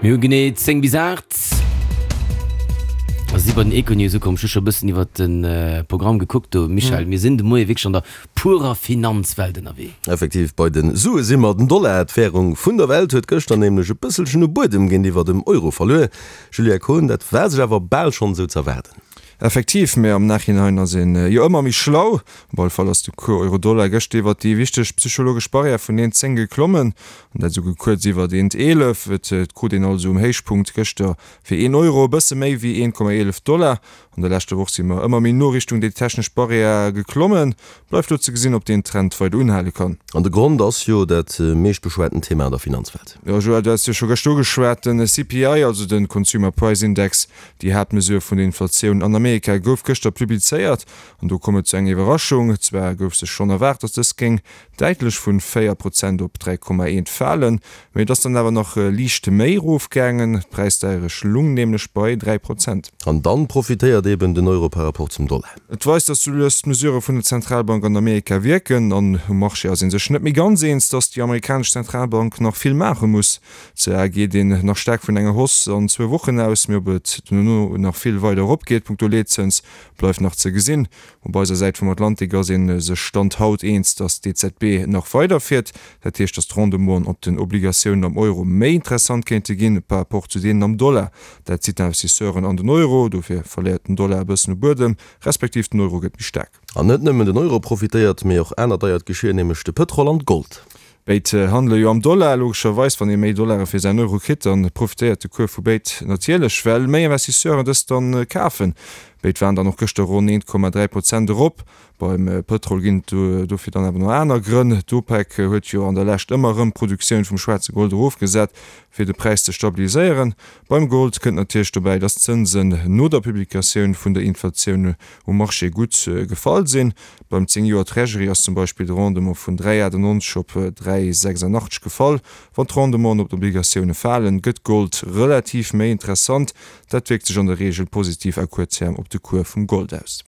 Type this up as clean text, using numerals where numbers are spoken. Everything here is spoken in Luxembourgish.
Mir hu genee 10 bis 8 a si bei den Econews ukomm. Ech hu scho e bëssen iwwert de Programm gekuckt do, Michel. Mir sinn de Moie wierklech an der purer Finanzwelt ënnerwee. Effektiv, bei de Sue si mer. Den Dollar, d'Wärung vun der Welt, huet gëschter nämlech e bësselchen u Buedem géintiwwer dem Euro verluer. Julia Kohn, dat war sech awer bal schonn esou z'erwaarden. Effektiv, mä am Nachhinein ass een jo ëmmer méi schlau. Op alle Fall ass de Cours Euro-Dollar gëschter iwwert déi wichteg psychologesch Barrière vun 1,10 geklommen, an dat esouguer kuerz iwwert 1,11. Et krut een also um Héichpunkt gëschter fir een Euro e bësse méi wéi 1,11 Dollar. An der leschter Woch si mer ëmmer méi no Richtung déi technesch Barrière geklommen. Bleift lo ze gesinn, ob deen Trend weider unhale kann. An de Grond ass jo dat meescht beschwaten Thema an der Finanzwelt. Jo Joël, du has jo scho gëschter ugeschwat, den CPI, also de Consumer Price Index, déi Haaptmesure vun der Inflatioun an Amerika, gouf gëschter publizéiert. An do koum et zu enger Iwwerraschung. Zwar gouf sech schonn erwaart, datt dës géing däitlech vun 4 Prozent op 3,1 falen, mee et ass dann awer nach liicht méi erofgaangen. D'Präisdeierecht lung nämlech bei 3 Prozent. An dann profitéiert eben den Euro par rapport zum Dollar. Et weist, datt sou lues d'Mesurë vun der Zentralbank an Amerika wierken. An um Marché ass ee sech net méi ganz eens, datt déi amerikanesch Zentralbank nach vill maache muss. Zwar geet een nach staark vun enger Hausse an zwou Wochen aus, mee ob et dono nach vill weider eropgeet punkto Leetzëns, bleift nach ze gesinn. Op eiser Säit vum Atlantik ass ee sech Stand haut eens, datt d'EZB nach weider fiert. Dat heescht, datt d'Rendementen op den Obligatiounen am Euro méi interessant kéinte ginn par rapport zu deenen am Dollar. Dat zitt d'Investisseuren an den Euro, dofir verléiert den Dollar e bëssen u Buedem, respektiv den Euro gëtt méi staark. An net nëmmen den Euro profitéiert, mee och anert deiert Geschir, nämlech de Pëtrol an d'Gold. Béid handele jo am Dollar. Logescherweis, wann ee méi Dollare fir säin Euro kritt, da profitéiert de Cours vu béid natierlech, well méi Investisseuren dës dann kafen. Béid waren dann och gëschter ronn 1,3 Prozent erop. Beim Pëtrol ginn et dofir dann awer nach aner Grënn. D'OPEC huet jo an der Lescht ëmmer erëm d'Produktioun vum schwaarze Gold erofgesat, fir de Präis ze stabiliséieren. Beim Gold kënnt natierlech dobäi, dass d'Zënsen no der Publikatioun vun der Inflatioun um Marché gutt gefall sinn. Beim 10 Joer Treasury ass zum Beispill de Rendement vun 3,98 op 3,86 gefall. Wann d'Rendementen op d'Obligatioune falen, gëtt Gold relativ méi interessant. Dat wierkt sech an der Reegel positiv à court terme op de Cours vum Gold aus.